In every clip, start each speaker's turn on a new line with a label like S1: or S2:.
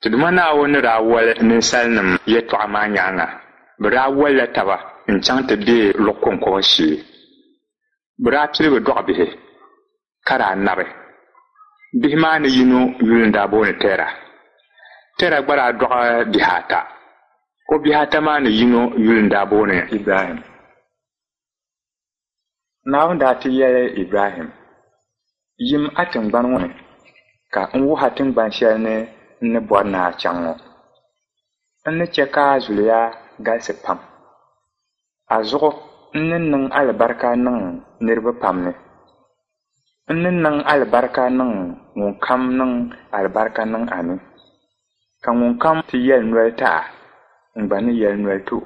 S1: Ti Duuma Naawuni ni daa woli ninsalinim yɛtɔɣa maa nyaaŋa, bɛ daa wolila taba n-chaŋ ti be luɣ kɔŋkɔba shee. Bɛ daa piligi dɔɣi bihi, ka daa nabi. Bihi maa ni yino yuli n-daa booni Tɛra. Tɛra gba daa dɔɣi bihi ata. O bihi ata maa ni yino yuli n-daa booni Ibrahim. Naawuni daa ti yɛli Ibrahim, Yim a tiŋgbani ŋɔ ni, ka n wuhi a tiŋgban shɛli ni n ni bɔri ni a chaŋ ŋɔ. N ni chɛ ka a zuliya galisi pam. A zuɣu n ni niŋ alibarika niŋ niriba pam ni. N ni niŋ alibarika niŋ ŋunkam niŋ alibarika niŋ a ni, ka ŋunkam ti yɛli noli ti a, n gba ni yɛli noli ti o.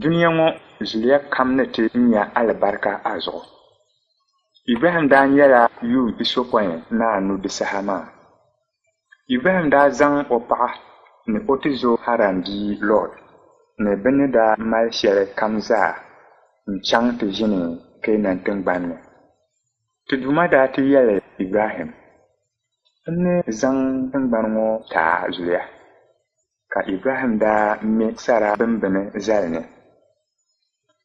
S1: Dunia ŋɔ zuliya kam ni ti nya alibarika a zuɣu. Ibrahim daa nyɛla yuun pisopɔin ni anu di saha maa. Ibrahim daa zaŋ o paɣa ni o tizo Haran bia Lɔt ni bɛ ni daa mali shɛli kam zaa n-chaŋ ti ʒini Keenan tiŋgbani ni. Ti Duuma daa ti yɛli Ibrahim, N ni zaŋ tiŋgbani ŋɔ ti a zuliya. Ka Ibrahim daa me sara bimbini zali ni.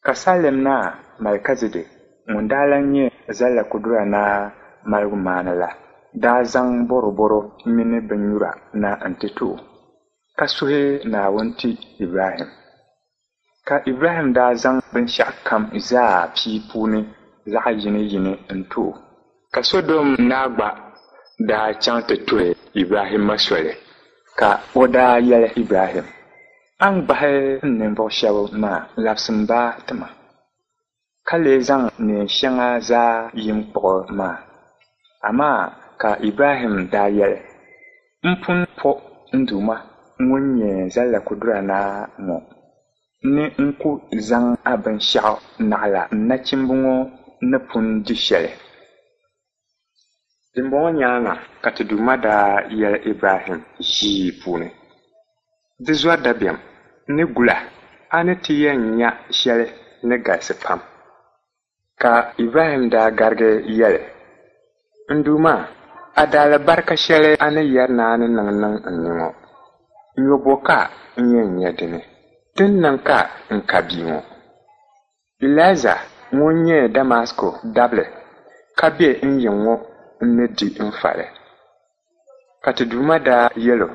S1: Ka Salɛm naa Malikizidɛk ŋun daa lan nyɛ Zallakudura Naa maligumaana la daa zaŋ bɔrɔbɔro mini binnyura na nti ti o, ka suhi Naawuni ti Ibrahim. Ka Ibrahim daa zaŋ binshɛɣukam zaa pii puuni zaɣ yiniyini n-ti o. Ka Sɔdom naa gba daa chaŋ ti tuhi Ibrahimma soli, ka o daa yɛli Ibrahim, A ni gbahi n ninvuɣ shɛb maa labisim ba ti ma, ka lee zaŋ neen shɛŋa zaa yim kpuɣi maa. Amaa ka Ibrahim daa yɛli, M pun po n Duuma ŋun nyɛ Zallakudura Naa ŋɔ ni n ku zaŋ a binshɛɣu naɣila n nachimba ŋɔ ni pun di shɛli. Dimbɔŋɔ nyaaŋa ka ti Duuma daa yɛli Ibrahim ʒii puuni, Di zɔri dabiɛm, n ni gul a, a ni ti yɛn nya shɛli ni galisi pam. Ka Ibrahim daa garigi yɛli, N Duuma, a daalibarika shɛli a ni yɛri ni a ni niŋ niŋ n ni ŋɔ, nyɔ bɔ ka n yɛn nya di ni? Di ni niŋ ka n ka bia ŋɔ. Eliɛza ŋun nyɛ Damasko dabili ka be n yiŋ ŋɔ n-ni di n fali. Ka ti Duuma daa yɛl o,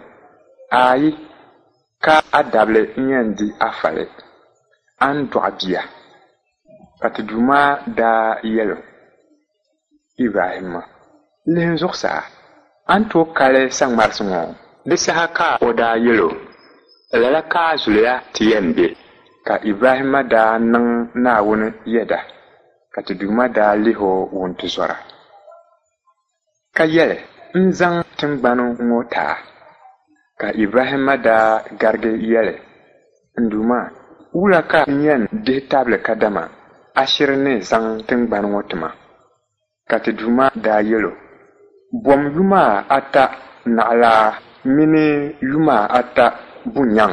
S1: Aai, ka a dabili n-yɛn di a fali, a ni dɔɣi bia. Ka ti Duuma daa yɛl o, Ibrahimma, lihim zuɣusaa, a ni tooi kali saŋmarisi ŋɔ? Di saha ka o daa yɛl o, Lala ka a zuliya ti yɛn be. Ka Ibrahimma daa niŋ Naawuni yɛda, ka ti Duuma daa lih o wuntizɔra. Ka yɛli, N zaŋ tiŋgbani ŋɔ ti a. Ka Ibrahimma daa garigi yɛli, N Duuma, wula ka n yɛn dihi tabili kadama a shiri ni zaŋ tiŋgbani ŋɔ ti ma? Ka ti Duuma daa yɛl o, Bom yuma ata naɣilaa mini yuma ata bunyaŋ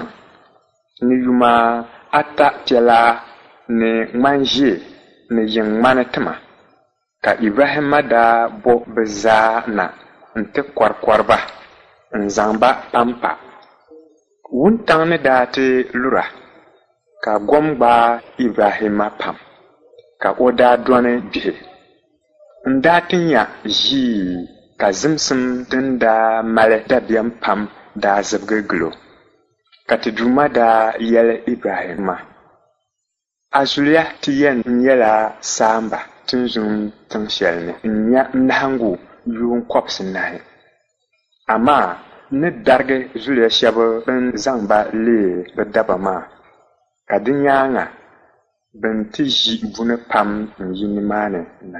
S1: ni yuma ata piɛlaa ni ŋmanʒee ni yiŋ ŋmani ti ma. Ka Ibrahimma daa bo bɛ zaa na nti kɔrikɔri ba n-zaŋ ba pampa. Wuntaŋ ni daa ti lura, ka gom gbaai Ibrahimma pam, ka o daa dɔni gbihi. N-daa ti nya ʒii ka zimsim din daa mali dabiɛm pam daa zibigi gil o. Ka ti Duuma daa yɛli Ibrahimma, A zuliya ti yɛn nyɛla saamba tinzun tiŋ shɛli ni n-nya nahiŋgu yuun kɔbisinahi. Amaa n ni darigi zuliya shɛb bɛn zaŋ ba leei bɛ daba maa, ka di nyaaŋa bɛ ni ti ʒi buni pam n-yi nimaani na.